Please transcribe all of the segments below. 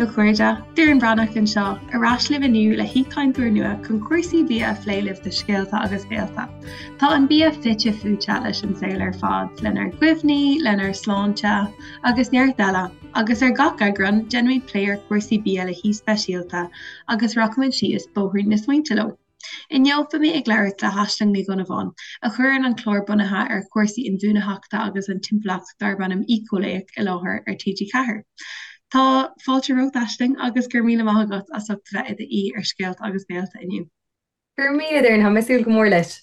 a chairde, Doireann Breathnach anseo, ar ais libh inniu le haoichainteoir nua chun cúrsaí bia a phlé libh do Scéalta agus Béalta. Tá an bia fite fuaite leis an saol ar fad, lenár gcuimhní, lenár sláinte, agus neart eile, agus ar gach eagrán, déanfaimid plé ar chúrsaí bia le haoi speisialta agus rachaimid síos bóithrín na smaointe leo. Inniu beidh mé ag labhairt le hAisling Ní Dhonnabháin, a chuireann an clár bunaithe ar chúrsaí inbhuanaitheachta agus an timpeallacht darb ainm Éiceolaíoch i láthair ar TG4. Tá fáilte romhat, Aisling, agus go raibh míle maith agat as ucht a bheith i d'aoi ar Scéalta agus Béalta inniu. Go raibh míle, Doireann, tá mé ag súil go mór leis.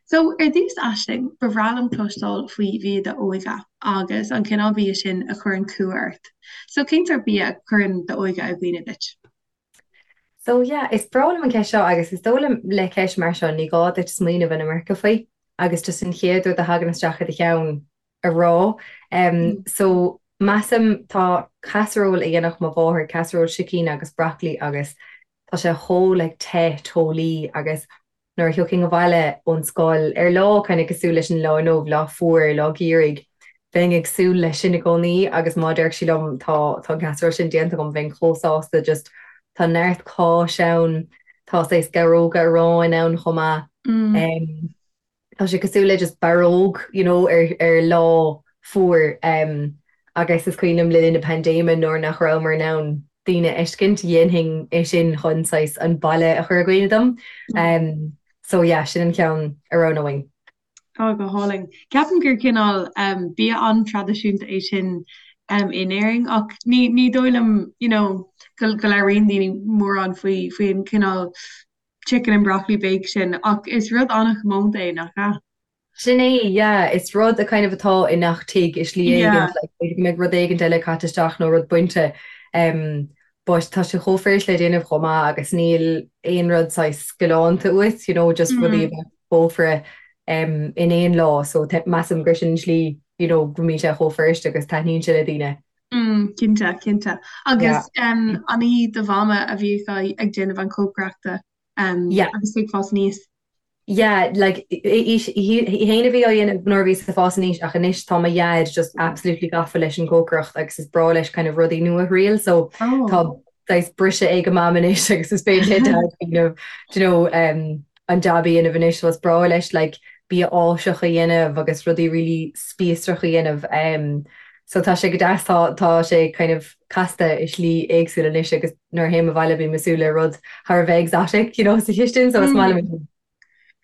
So, ar dtús, Aisling, ba bhreá liom cloisteáil faoi bhia d'óige agus an cineál bia sin a chuireann cumha ort. So, cén sórt bia a chuireann d'óige i gcuimhne duit? So yeah, is breá liom an ceist seo agus is dóigh liom le ceist mar seo ní gá duit smaoineamh an iomarca faoi agus just an chéad rud a thagann isteach i do cheann a rá. Um, so measaim tá casserole a dhéanfadh mo mháthair, casserole sicín agus broccoli agus tá sé chomh like te teolaí agus Nuair a thiocfainn abhaile ón scoil ar lá kind of cosúil leis an lá inniu, lá fuar, lá geimhridh, bheinn ag súil leis sin i gcónaí agus má déarfadh sí liom tá tá an casserole sin déanta agam bheinn chomh sásta just tá neart cáis ann, tá saghas geabhróga aráin ann chomh maith. Mm. Tá sé cosúil le just barróg you know ar ar lá fuar um, agus is cuimhin liom le linn na paindéime nuair nach rabhamar in ann daoine a fheiscint, dhéanfainn é sin chun saghas an baile a chur i gcuimhne dom. Um, so yeah, sin an ceann a roghnóinn. Tá go hálainn. Ceapaim gur cineál um, bia an-traidisiúnta é sin um, in Éirinn ach ní, ní dóigh liom you know, go, go labhraíonn daoine mórán faoi faoi an cineál chicken and broccoli bake sin ach is rud an-chomónta é nach ea? Sin é, yeah. Is rud a kind of atá i ngach tigh i slí éigint, like b'fhéidir go mbeidh rud éigint eile caite isteach nó rud bainte um but tá sé chomh fuirist le déanamh chomh maith agus níl aon rud saghas galánta uait, you know, just rudaí a bheadh sa chófra um in aon lá so measaim gur sin an tslí, you know, go mbíonn sé chomh fuirist agus taitníonn sé le daoine. Mm, cinnte, cinnte. Agus um an í do mhama a bhíodh ag déanamh an chócaireachta um agus tú ag fás aníos? Yeah, like, í féin a bhí á dhéanamh nuair a bhíos ag fás aníos ach anois tá mo dhaid just absolutely gafa leis an gcócaireacht agus is breá leis kind of rudaí nua a thriail so oh. tá saghas briseadh ag mam anois agus is féidir le dad kind of, do you know, um, an jab a dhéanamh anois so is breá leis like bia Áiseach a dhéanamh agus rudaí really spíosrach a dhéanamh um, so tá sé go deas tá tá sé kind of casta i slí éagsúil anois agus nuair a théim abhaile bím ag súil le rud thar a bheith exotic, you know, sa chistin, so is maith liom sin.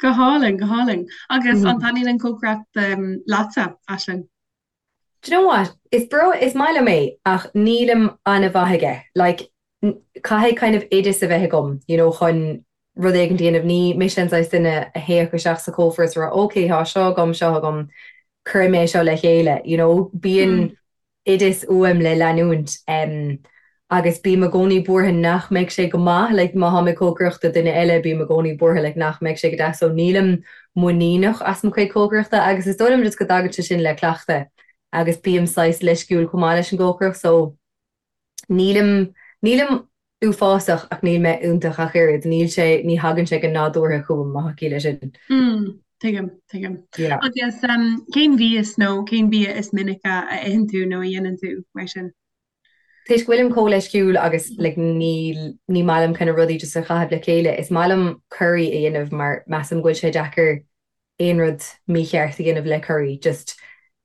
Go hálainn, go hálainn. Agus an taitníonn an cócaireacht leatsa, Aisling? Do you know what? Is breá, is maith liom é ach nílim an-mhaith aige. Like, caithfidh kind of oideas a bheith agam, you know, chun rud éigin a dhéanamh. Ní mise an saghas duine a théadh isteach sa chófra is a rá, ok, tá seo agam, seo agam, cuirfidh mé seo le chéile, you know. Bíonn oideas uaim le leanúint agus bím i gcónaí buartha nach mbeidh sé go maith, like má tháim ag cócaireacht do duine eile bím i gcónaí buartha like nach mbeidh sé go deas so nílim muiníneach as mo chuid cócaireachta agus is dóigh liom just go dtagann sé sin le cleachtadh agus bím saghas leisciúil chomh maith leis an gcócaireacht so nílim, nílim uafásach ach níl mé iontach ach oiread, níl sé, ní thagann sé go nádúrtha chugam má tá ciall leis sin. Mm, tuigim, tuigim. Yeah. Agus um, cén mhias nó cén bia is minice a itheann tú nó a dhéanann tú mar sin? Toisc go bhfuilim chomh leisciúil agus like, níl, ní maith liom kind of rudaí just a chaitheamh le chéile, is maith liom curry a dhéanamh mar measaim go bhfuil sé deacair aon rud mícheart a dhéanamh le curry, just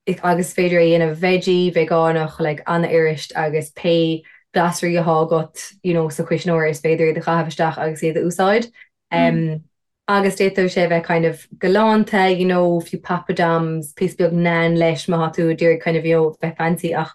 agus is féidir é a dhéanamh veggie, veigeánach, like an-fhuirist agus pé glasraí atá agat you know sa chuisneoir is féidir iad a chaitheamh isteach agus iad a úsáid. Um, agus d'fhéadfadh sé a bheith kind of galánta, you know, fiú poppadoms, píosa beag naan leis má tá tú ag iarraidh kind of you know bheith fancy ach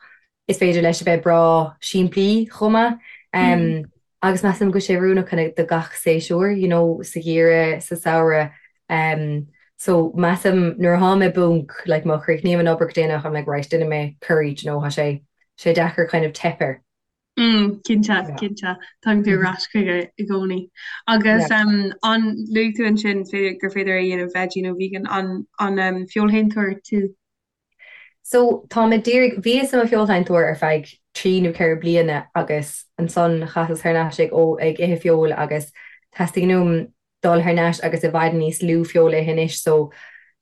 Is féidir leis a bheith breá simplí chomh maith. Agus measaim go bhfuil sé oiriúnach kind of do gach séasúr, you know, sa gheimhreadh, sa samhradh. So measaim nuair atá mé i bponc, like má chríochnaím an obair go déanach, I'm like right, déanfaidh mé curry, do you know, tá sé sé deacair kind of teip air. Mm, cinnte, cinnte. Tagann tú ar ais chuige i gcónaí. Agus um, an luaigh tú ansin gur féidir é a dhéanamh veggie nó vegan, an, an um, feoilshéantóir tú? So, tá mé díreach, bhíos i mo feoilséantóir ar feadh 3 nó 4 bliana agus ansan chasas thar n-ais ag, ó, ag ithe feoil agus teastaíonn uaim dul thar n-ais agus i bhfad níos lú feoil a ithe anois so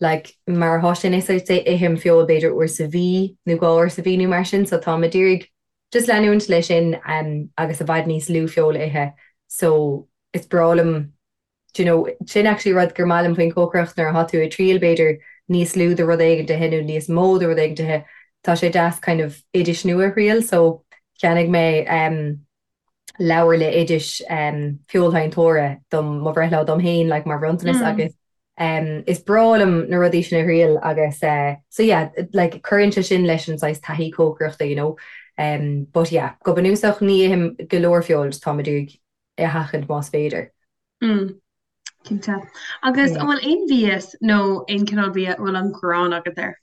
like mar atá sé anois I'd say ithim feoil b'fhéidir uair sa mhí nó dhá uair sa mhí nó mar sin so tá mé d'iarraidh. just leanúint leis sin agus i bhfad níos lú feoil a ithe so is breá liom do you know, sin actually rud gur maith liom faoin chócaireacht nuair atá tú ag triail b'fhéidir níos lú de rud éigin a ithe nó níos mó de rud éigin a ithe, tá sé deas kind of oidis nua a thriail so cheannaigh mé um leabhar le oidis um feoilséantóra dom mo bhreithlá dom féin like mar bhronntanas agus um is breá liom na rudaí sin a thriail agus eh so yeah like cuireann sé sin leis an saghas taithí cócaireachta you know um but yeah go bunúsach ní ithim go leor feoil just táim ag iarraidh é a sheachaint más féidir. Mm. Cinnte. Agus an bhfuil aon mhias nó aon cineál bia a bhfuil an ghráin agat air?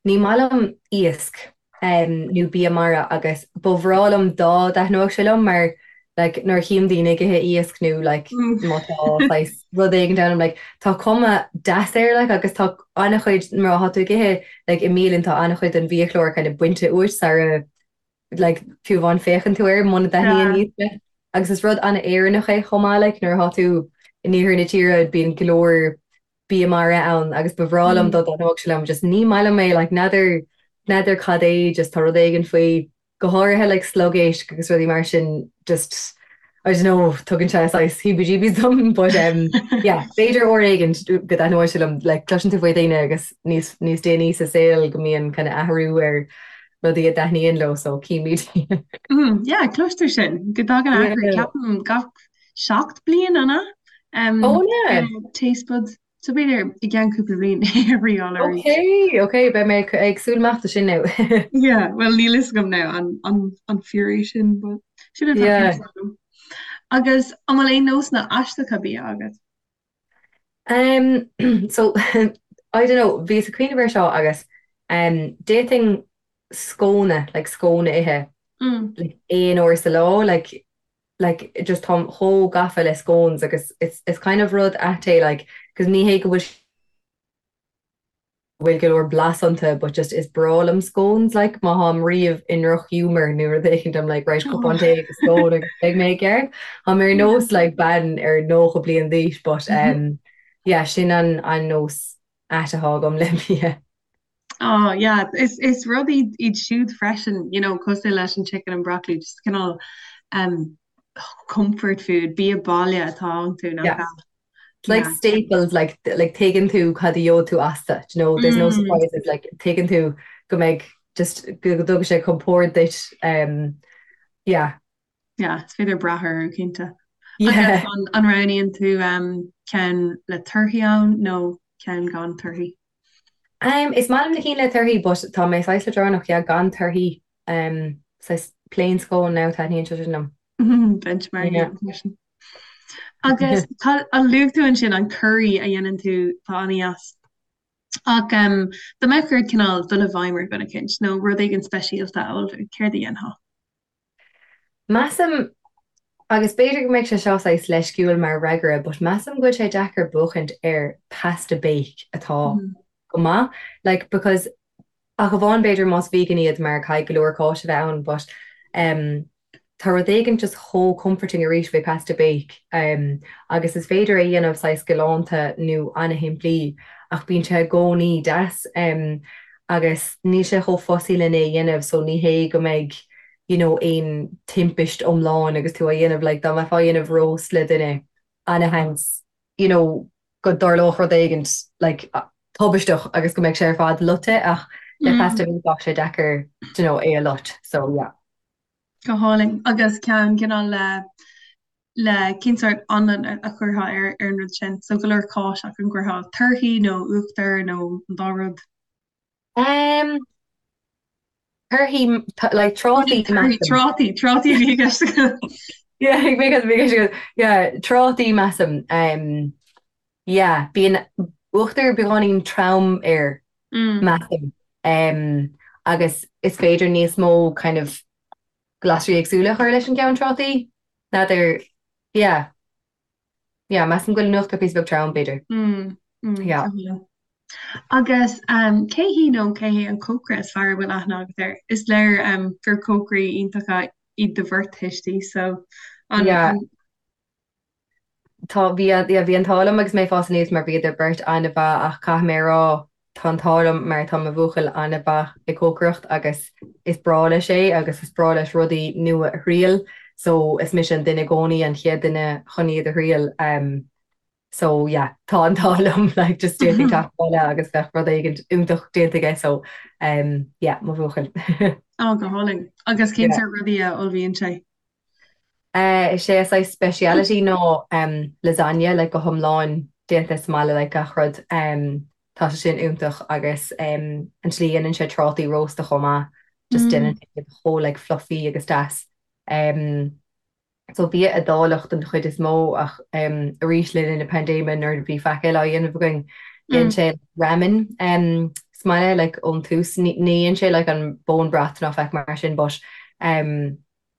Ní maith liom iasc nó bia mara agus ba bhreá liom dá dtaitneodh sé liom mar like nuair a chím daoine ag ithe iasc nó like má tá saghas rud éigin ann I'm like tá cuma deas air like agus tá an-chuid má tá tú ag ithe like i mbialann tá an-chuid den bhiachlár kind of bainte uait sara like fiú amháin féachann tú air muna dtaitníonn iasc leat. Agus is rud an-Éireannach é chomh maith like nuair atá tú in iarthar na tíre bíonn go leor bia mara ann agus ba bhreá liom dá dtaitneodh sé liom just ní maith liom é like n'fheadar n'fheadar cad é just tá rud éigin faoi go háirithe like sliogéisc agus rudaí mar sin just I don't know tugann sé saghas heebie-jeebies dom but um yeah b'fhéidir uair éigin go dtaitneoidh sé liom like cloiseann tú faoi dhaoine agus níos níos déanaí sa saol go mbíonn kind of athrú ar rudaí a dtaitníonn leo so címid. Mm, yeah, cloistear sin go dtagann athrú ceapaim gach 7 bliain an ea? Um, oh yeah. Taste buds. So b'fhéidir i gceann cúpla bliain a thriail arís. Ok, ok, beidh mé ag súil amach do sin now. Yeah, well níl fhios agam now an, an, an fíor é sin, but sin atá yeah. agam. Agus an bhfuil aon nósanna aisteacha bia agat? Um, so, I don't know, bhíos ag cuimhneamh air seo agus um, d'fhéadfainn scóna, like scóna a ithe, mm. like, aon uair sa lá, like, like just táim chomh gafa le scones agus it's, it's kind of rud ait é, like, 'cause ní hé go bhfuil bhfuil go leor blas iontu but just is breá liom scones like má tháim riamh i ndrochghiúmar nó rud éicint I'm like right cupán tae agus scone agus beidh mé i gceart. Táim ar nós like bean ar 90 bliain d'aois but um yeah sin an an nós ait atá agam le bia. Oh yeah, is is rud iad iad siúd freisin, you know, cosúil leis an chicken and broccoli, just cineál um comfort food, bia baile atá iontu nach Yeah. ea? Like Yeah. staples like like tuigeann tú cad a gheobhaidh tú astu, do you know, there's no Mm. surprises like tuigeann tú go mbeidh just go dtugann sé compord duit um yeah. Yeah, is féidir brath orthu cinnte. Yeah. Agus an, an roghnaíonn tú um, ceann le torthaí ann nó ceann gan torthaí? Um, is maith liom na cinn le torthaí but tá mé saghas leadránach, yeah, gan torthaí um, saghas plain scone now taitníonn sé sin liom. Benchmark Yeah. freisin. Agus tá an luaigh tú ansin an curry a dhéanann tú tá an-deas. Ach um, dá mbeadh ort cineál dul i bhfeidhm ar dhuine éicint nó rud éigin speisialta a ullmhú, céard a dhéanfá? Measaim, agus b'fhéidir go mbeidh sé seo saghas leisciúil mar fhreagra, but measaim go bhfuil sé deacair buachaint ar pasta bake atá go maith. Like, because ach amháin b'fhéidir más vegan iad mar caithfidh go leor cáis a bheith ann, but um, tá rud éigin just chomh comforting arís faoi pasta bake um, agus is féidir é a dhéanamh saghas galánta nó ana-shimplí ach bíonn sé i gcónaí deas. Um, agus níl sé chomh fussy lena é dhéanamh so ní hé go mbeidh you know aon timpist iomlán agus tú á dhéanamh like dá mbeifeá á dhéanamh roast le duine ana-sheans you know go dtarlódh rud éigint like tubaisteach agus go mbeadh sé ar fad loite ach le pasta bake bheadh sé deacair you know é a loit so yeah. Go hálainn. Agus ceann cineál le le cén sórt anlann a chuirfeá ar ar an rud sin? So go leor cáis ach an gcuirfeá torthaí nó uachtar nó an dá rud? Um, torthaí like trátaí measaim. Trátaí, trátaí a bhí i gceist agam. Yeah, bhí i gceist agam. Yeah, trátaí measaim. Um, yeah, bíonn uachtar beagáinín trom air measaim. Um, agus is féidir níos mó kind of glasraí éagsúla a chur leis an gceann trátaí. N'fheadar, yeah. Yeah, measaim go bhfuil an uachtar píosa beag trom, b'fhéidir. Mm, mm, Yeah. Agus um, cé hí nó cé hé an cócaire is fearr a bhfuil aithne agat air? Is léir um, gur cócairí iontacha iad do bheirt thuistí, so an, Yeah. an Tá, bhí, yeah, bhí an t-ádh liom agus mé ag fás aníos mar bhíodar beirt an-mhaith ach caithfidh mé a rá. tá an t-ádh liom mar tá mo bhuachaill an-mhaith ag cócaireacht agus is breá leis é agus is breá leis rudaí nua a thriail so is mise an duine i gcónaí an chéad duine chun iad a thriail so yeah tá an t-ádh liom like just d'fhéadfainn teacht abhaile agus bheadh rud éigin iontach déanta aige so yeah mo bhuachaill. Ó go hálainn. Agus cén sórt rudaí a ullmhaíonn sé? Is é a saghas speciality ná lasagne like go hiomlán déanta sa mbaile like gach rud. Tá sé sin iontach agus an tslí a dhéanann sé trátaí rósta chomh maith just déanann sé iad chomh like fluffy agus deas. So bia Iodálach den chuid is mó ach arís le linn na paindéime nuair a bhí faic eile á dhéanamh againn dhein sé ramen sa mbaile like ón tús. Ní dhein sé like an bone broth ná faic mar sin but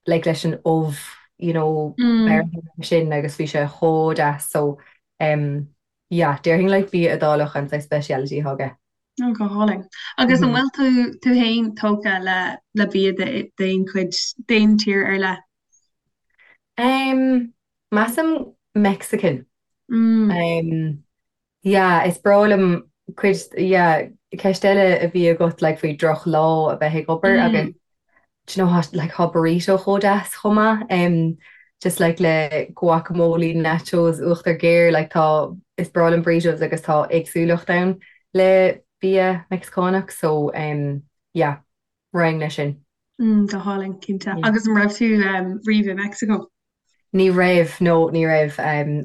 like leis an ubh you know bearrtha sin agus bhí sé chomh deas so um yeah déarfainn like bia Iodálach an saghas speciality atá aige. Oh go hálainn. Agus an bhfuil tú tú féin tógtha le le bia d'aon chuid d'aon tír ar leith? Um measaim Mexican. Um Yeah, is breá liom cuid, yeah, ceist eile a bhí agat like faoi droch lá a bheith ag obair agus do you know how like tá burrito chomh deas chomh maith um just like le guacamole, nachos, uachtar géar like tá, is breá liom burritos agus tá éagsúlacht ann le bia Meicsiceánach so um yeah, raghainn leis sin. Mm, go hálainn, cinnte. Agus an raibh tú um, riamh i Meicsiceo? Ní raibh, no, ní raibh.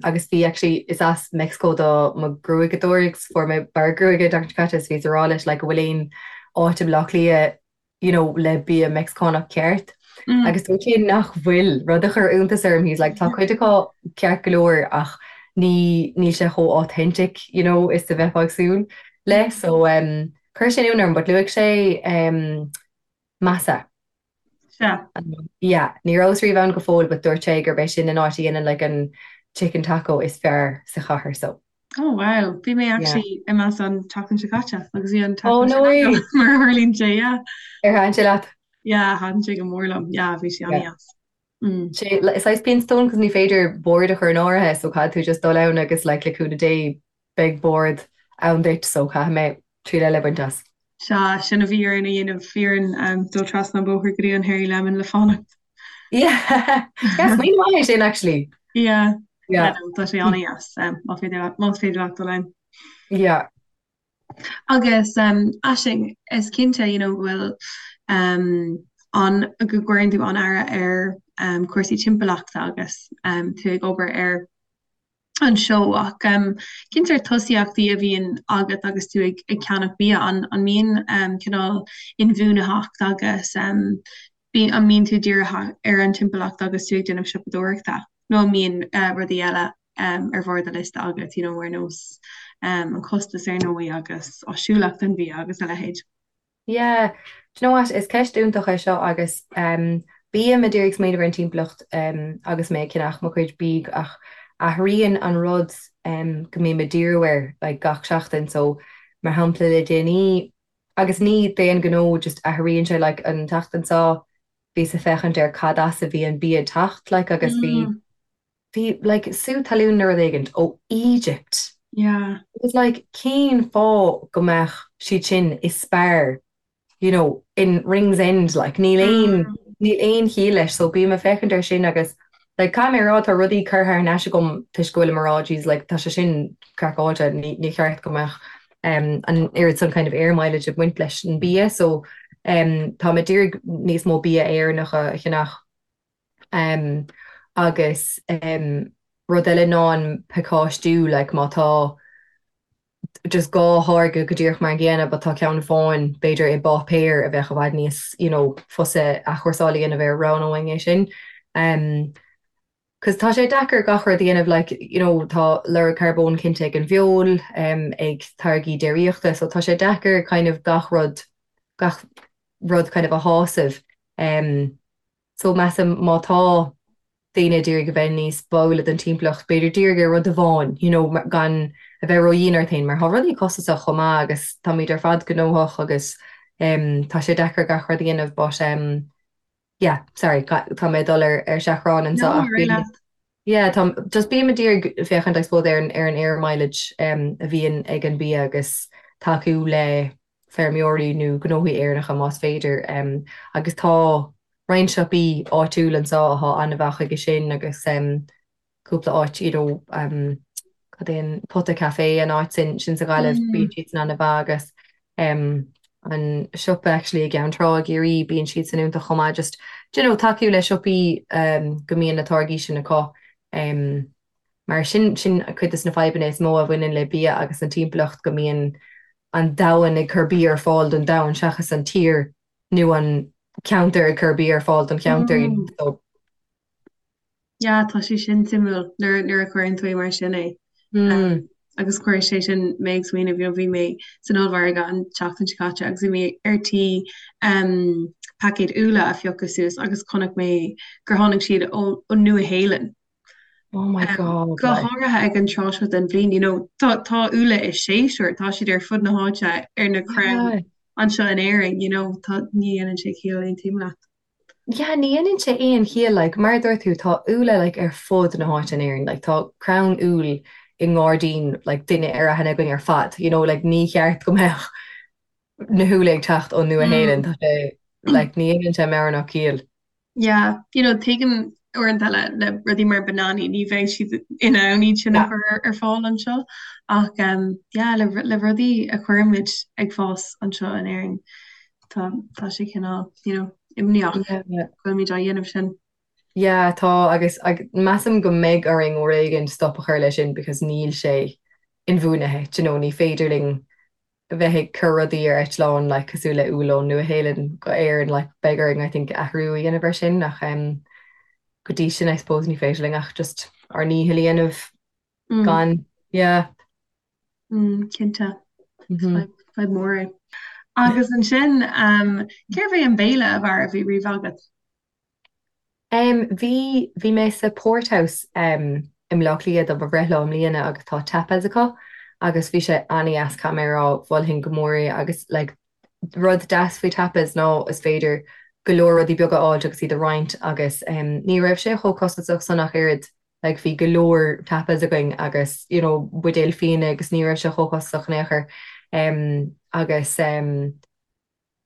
Agus bhí, actually, is as Meicsiceo do mo ghruaigeadóir agus fuair mé bearradh gruaige an tseachtain seo caite is bhíos ag rá leis like an bhfuil aon áit i mBleá Cliath you know le bia Meicsiceánach ceart. Agus dúirt sé nach bhfuil, rud a chuir iontas orm, he's like tá cuid acu ceart go leor ach ní, níl sé chomh authentic you know is a bheifeá ag súil le. So um, chuir sin ionadh orm but luaigh sé um, Masa. Sea. Yeah, ní rabhas riamh ann go fóill but dúirt sé gurb é sin an áit a dhéanann like an chicken taco is fearr sa chathair so. Oh wow, bhí mé actually i Masa an tseachtain seo caite agus bhí an Oh taco no sin way! agam mar a tharlaíonn sé, yeah. Ar thaitin sé leat? Yeah, thaitin sé go mór liom, yeah, bhí sé Yeah. an-dheas. Mm. Sé is saghas pian stone cos ní féidir bord a chur in áirithe so caithfidh tú just dul ann agus like le cúnamh Dé beidh bord ann duit so caithfidh mé triail eile a bhaint as. Sea, sin a bhí orainn a dhéanamh, bhí orainn dul trasna an bóthar go dtí an Hairy Lemon le fanacht. Yeah, yeah, smaoineamh maith é sin actually. Yeah, Yeah. yeah, no, tá sé an-dheas, má féidir leat, más féidir leat dul ann. Yeah. Agus Aisling, is cinnte, you know, go bhfuil um, an, go gcuireann tú an-aire ar um, cúrsaí timpeallachta agus um, tú ag obair ar an seó ach cén sórt tosaíochtaí a bhíonn agat agus tú ag ceannach bia? An mbíonn cineál inbhuanaitheacht agus an mbíonn tú dírithe ar an timpeallacht agus tú ag déanamh siopadóireachta nó an mbíonn rudaí eile ar bharr do liosta agat, you know, ar nós an costas ar ndóigh agus áisiúlacht an bhia agus a leithéid? Yeah, do you know what, is ceist iontach é seo agus bím ag iarraidh smaoineamh ar an timpeallacht agus mé ag ceannach mo chuid bídh ach athraíonn an rud go mbím ag díriú air like gach seachtain so mar shampla le déanaí agus ní d'aon ghnó just athraíonn sé like an tseachtain seo bhíos ag féachaint ar cad as a bhí an bia ag teacht like agus bhí Bhí like sú talún nó rud éigint ó Egypt. Yeah. It was like cén fáth go mbeadh siad sin i Spar you know in Ringsend like níl aon níl aon chiall leis so bím ag féachaint air sin agus like caithfidh mé a rá tá rudaí curtha thar n-ais agam toisc go bhfuilim ag rá jeez like tá sé sin craiceáilte ní ní cheart go mbeadh um an oiread san kind of air mileage ag baint leis an bia so um táim ag iarraidh níos mó bia Éireannach a cheannach. Agus rud eile ná an pacáistiú, like má tá just dhá tháirge go díreach mar an gcéanna but tá ceann amháin b'fhéidir i bpáipéar a bheadh i bhfad níos you know fusa athchúrsáil a dhéanamh air, roghnóinn é sin. Cos tá sé deacair gach rud a dhéanamh like you know tá lorg carbóin cinnte ag an bhfeoil, ag táirgí déiríochta so tá sé deacair kind of gach rud gach rud kind of a shásamh. So measaim má tá daoine ag iarraidh a bheith níos báúla don timpeallacht, b'fhéidir dírigh ar rud amháin, you know, gan a bheith ródhian ort féin, mar tá rudaí costasach chomh maith agus táimid ar fad gnóthach agus tá sé deacair gach rud a dhéanamh but yeah, sorry, tá mé ag dul ar ar seachrán anseo No, ach ar aghaidh leat. yeah, tá, just bím ag iarraidh féachaint I suppose ar an ar an air mileage a bhíonn ag an bia agus. tacú le feirmeoirí nó gnóthaí Éireannacha más féidir agus tá roinnt siopaí áitiúil anseo atá an-mhaith chuige sin agus cúpla áit you know cad é an Pota Café an áit sin sin sa Ghaillimh bíonn siad san an-mhaith agus an siopa actually i gCeann Trá i gCiarraí bíonn siad san iontach chomh maith just do you know tacú le siopaí go mbíonn na táirgí sin acu mar sin sin cuid de na fadhbanna is mó a bhaineann le bia agus an timpeallacht go mbíonn an domhan ag cur bia ar fáil don domhan seachas an tír nó an ceantar ag cur bia ar fáil don cheantar you know so Yeah, tá sé sin suimiúil nuair nuair a chuireann tú é mar sin é. Mm. Agus chuir sé sin mé ag smaoineamh, you know, bhí mé san ollmhargadh an tseachtain seo caite agus bhí mé ar tí um, paicéad úlla a phiocadh suas agus chonaic mé gur tháinig siad ón Nua-Shéalainn. Oh my God. Go háirithe ag an tráth seo den bhliain, you know, tá tá úlla i séasúr, tá siad ar fud na háite ar na crainn anseo in Éirinn, you know, tá ní dhéanann sé ciall aontaím leat. Yeah, ní dhéanann sé aon chiall, like, mar a dúirt tú, tá úlla, like, ar fud na háite in Éirinn, like, tá crann úll i ngairdín, like, duine ar aithne againn ar fad, you know, like, ní cheart go mbeadh na húlla ag teacht ón Nua-Shéalainn, tá sé, like, ní dhéanann sé meabhair ná ciall. Yeah, you know, tuigim uaireanta le, le rudaí mar bananaí, ní bheidh siad in ann iad sin a chur ar, ar fáil anseo, ach, um, yeah, le, le rudaí a chuirimid ag fás anseo in Éirinn, Tá, tá sé cineál, you know, imníoch go bhfuilimid á dhéanamh sin. Yeah, tá agus measaim go mbeidh orainn uair éigin stop a chur leis sin because níl sé inbhuanaithe, do you know, ní féidir linn bheith ag cur rudaí ar eitleán like cosúil le úll ón Nua-Shéalainn go Éirinn like beidh orainn I think athrú a dhéanamh ar sin ach um, go dtí sin I suppose ní féidir linn ach just ár ndícheall a dhéanamh gan, yeah. Cinnte. Fadhb mhór é. Agus ansin, cérbh é an béile ab fhearr a bhí riamh agat? Bhí, bhí mé sa Porthouse i mBleá Cliath do mo bhreithlá i mbliana agus tá tapas acu agus bhí sé an-dheas, caithfidh mé a rá, mholfainn go mór é agus like rud deas faoi tapas ná is féidir go leor rudaí beaga a fháilt agus iad a roinnt agus ní raibh sé chomh costasach san ach oiread. Like bhí go leor tapas againn agus you know buidéal fíona agus ní raibh sé chomh costasach in aon chor. Em agus em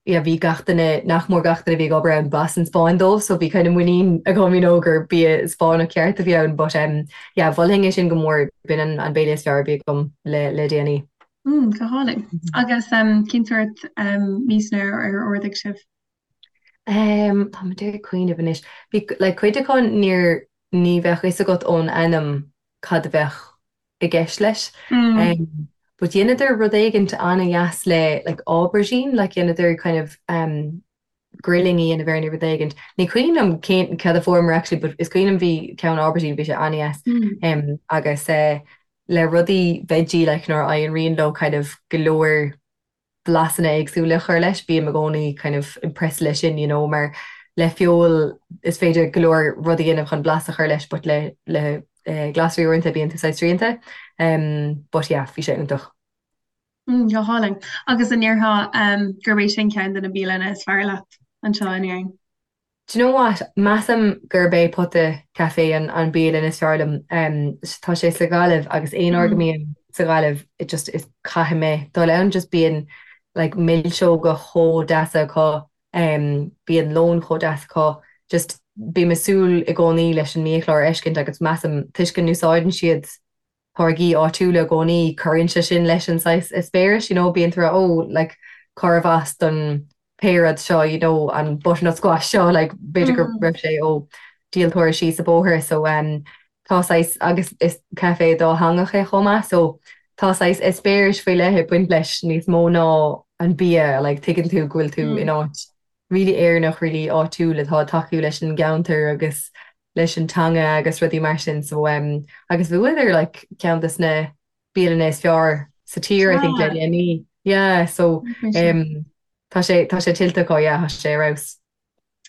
yeah bhí gach duine, nach mór gach duine a bhí ag obair ann b'as an Spáinn dóibh so bhí kind of muinín agam you know gur bia Spáinneach ceart a bhí ann but em yeah mholfainn é sin go mór, b'in an an béile is fearr a bhí agam le le déanaí. Mm, go hálainn. Agus em cén sórt em miasanna ar ar ordaigh sibh? Em tá mé ag cuimhneamh anois. Bhí like cuid acu níor ní bheadh fhios agat ón ainm cad a bheadh i gceist leis. Mm. But dheineadar rud éigint an-dheas le like aubergine, like dheineadar kind of um, grilling a dhéanamh air nó rud éigint. Ní cuimhin liom cén cad a fuaireamar actually, but is cuimhin liom bhí ceann aubergine, bhí sé an-dheas. Mm. Um, agus uh, le rudaí veggie like nuair a éiríonn leo kind of go leor blasanna éagsúla a chur leis, bím i gcónaí kind of impressed leis sin, you know, mar le feoil is féidir go leor rudaí a dhéanamh chun blas a chur leis but le le eh, glasraí uaireanta bíonn tú saghas srianta. Um, but yeah, bhí sé iontach. Mm, go hálainn. Agus an ndéarfá um, gurb é sin ceann de na bialanna is fearr leat anseo in Éirinn? Do you know what? Measaim gurb é Pota Café an an bialann is fearr liom. Tá sé sa Ghaillimh agus aon uair go mbím sa Ghaillimh it just is caithfidh mé dul ann just bíonn like milseoga chomh deasa acu, bíonn lón chomh deas acu, just bím ag súil i gcónaí leis an mbiachlár a fheiscint agus measaim toisc go n-úsáideann siad táirgí áitiúla i gcónaí, cuireann sé sin leis an saghas eispéiris, you know, bíonn tú ag rá oh like cárbh as don pé rud seo, you know, an butternut squash seo, like b'fhéidir go raibh sé ó díoltóir síos an bóthar so um tá saghas agus is caife dátheangach é chomh maith so tá saghas eispéiris faoi leith ag baint leis níos mó ná an bia, like tuigeann tú go bhfuil tú in áit really Éireannach, really áitiúil atá ag tacú leis an gceantar agus leis an teanga agus rudaí mar sin so um agus bhuadar like ceann des na bialanna is fearr sa tír I think le déanaí. Yeah so um tá sé tá sé tuillte acu yeah tá sé ar fheabhas.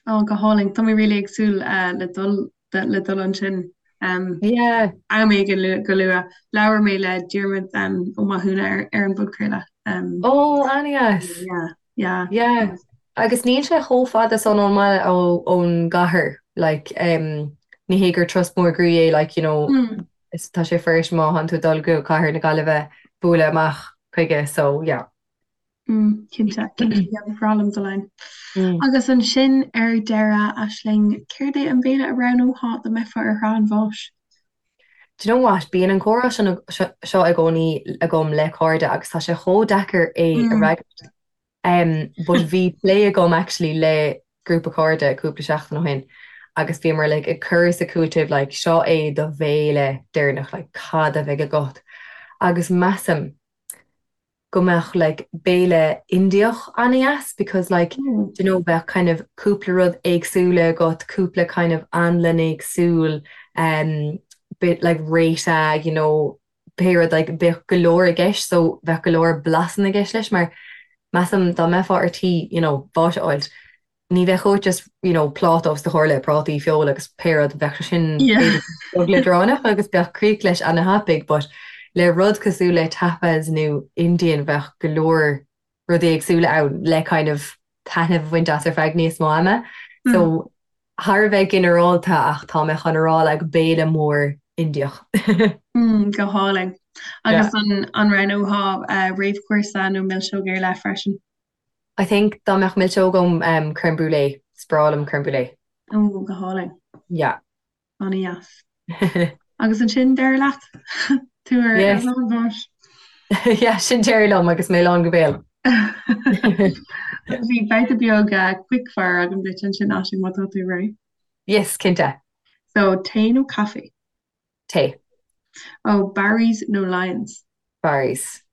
Oh go hálainn Tá mé really ag súil uh, le dul le dul ansin um, yeah. am éigin go luath. Labhair mé le Diarmuid um, Ó Mathúna ar, ar an bpodchraoladh. Um, oh an-dheas. Yeah. Yeah. Yeah. Agus níl sé chomh fada san ón mbaile ó ón gcathair like um, ní hé gur turas mór groí é like you know mm. is tá sé fuirist má thánn tú ag dul go cathair na Gaillimhe bualadh amach chuige so yeah. Mm, cinnte, cinnte, yeah, ba bhreá liom dul ann. Agus ansin ar deireadh, Aisling, céard é an béile a roghnófá dá mbeifeá ar thrá an bháis? Do you know what, bíonn an comhrá seo i gcónaí agam le cairde agus tá sé chomh deacair é a fhreagairt. Um, but bhí plé agam actually le grúpa cairde cúpla seachtain ó shin agus bhíomar like ag cur is ag cúiteamh like seo é do bhéile deireanach like cad a bheidh agat agus measaim go mbeadh like béile Indiach an-dheas because like do you know bheadh kind of cúpla rud éagsúla agat, cúpla kind of anlann éagsúil um bit like raita you know pé rud like bheadh go leor i gceist so bheadh go leor blasanna i gceist leis mar measaim dá mbeifeá ar tí you know bás a fháilt ní bheadh uait just you know pláta os do chomhair le prátaí, feoil agus pé rud, bheadh sé sin b'fhéidir beag leadránach agus bheadh críoch leis ana-thapaidh but le rud cosúil le tapas nó Indian bheadh go leor rudaí éagsúla ann le kind of taitneamh a bhaint as ar feadh níos mó ama. So thar a bheith ginearálta ach tá mé chun a rá like béile mór Indiach. Mm, go hálainn. Agus an an roghnófá réamhchúrsa nó milseog ar leith freisin? I think dá mbeadh milseog agam um crème brûlée, is breá liom crème brûlée. Ó, go hálainn. Yeah. An-dheas. Agus ansin deireadh leat? Tú ar Yes. ar an bháis. Yeah, sin deireadh liom agus mé lán go béal. Bhí babhta beag uh, quick fire agam duit ansin Aisling má tá tú réidh. Yes, cinnte. So, tae nó caife? Tae. Ó, Barry's nó Lyons? Barry's.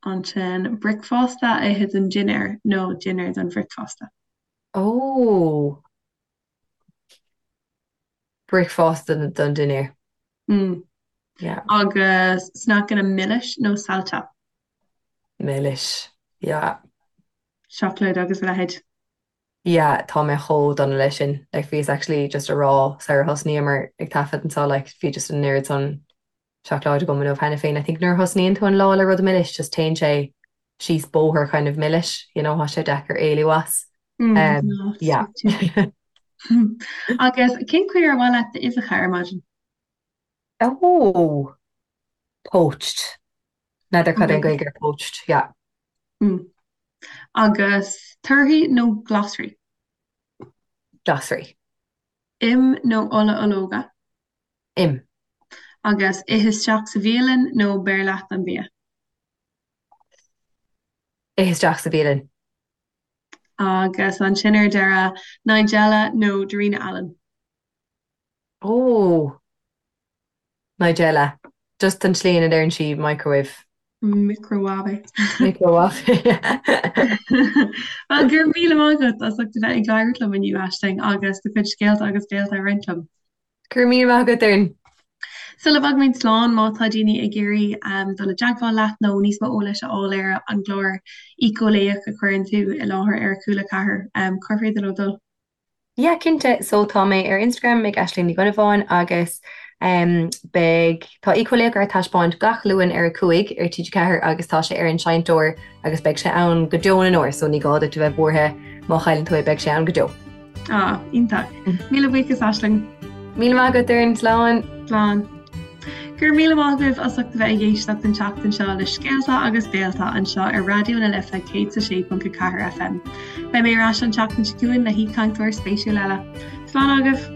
Ansin, bricfeasta a ithe don dinnéar nó dinnéar don bhricfeasta? Ó! Bricfeasta don dinnéar. Mm. Yeah. Agus sneaiceanna milis nó saillte? Milis. Yeah. Seacláid agus a leithéid. Yeah, tá mé chomh dona leis sin. Like, bhíos actually just a rá sar thosnaíomar ag taifead anseo, like, bhí just an oiread san seacláid agam inniu cheana féin. I think nuair a thosnaíonn tú an lá le rud milis, just téann sé síos bóthar kind of milis, you know, tá sé deacair éalú as. Mm, Um, no, yeah. Agus cén chaoi ar mhaith leat d'uibheacha ar maidin? Oh! Poached. N'fheadar cad é an Okay. Gaeilge ar poached, yeah. Mm. Agus torthaí nó glasraí? Glasraí. Im nó ola ológa? Im. Agus ith isteach sa bhialann nó beir leat an bia? Ith isteach sa bhialann. Agus ansin ar deireadh, Nigella nó Darina Allen? Ó! Nigella. Just an tslí ina ndeireann sí microwave. Microwave. Microwave. Bhuel, go raibh míle maith agat as ucht a bheith ag labhairt liom inniu, Aisling, agus do chuid scéalta agus béalta a roinnt liom. Go raibh míle maith agat, Doireann. Sula bhfágaimid slán, má tá daoine ag iarraidh dul i dteagmháil leat nó níos mó eolais a fháil ar an gclár Éiceolaíoch a chuireann tú i láthair ar Cúla 4, cár féidir leo dul? Yeah, cinnte. So tá mé ar Instagram ag Aisling Ní Dhonnabháin agus em beidh, tá Éiceolaíoch ar taispeáint gach Luan ar a 5 ar TG4 agus tá sé ar an seinnteoir agus beidh sé ann go deo na ndeor so ní gá duit a bheith buartha má chailleann tú é beidh sé ann go deo. Ah, iontach. Míle buíochas, Aisling. Míle maith agat, Doireann. Slán. Slán. Go raibh míle maith agaibh as ucht a bheith ag éisteacht an tseachtain seo le Scéalta agus Béalta anseo ar Raidió na Life 106.4 FM. Beidh mé ar ais an tseachtain seo chugainn le haoichainteoir spéisiúil eile. Slán agaibh!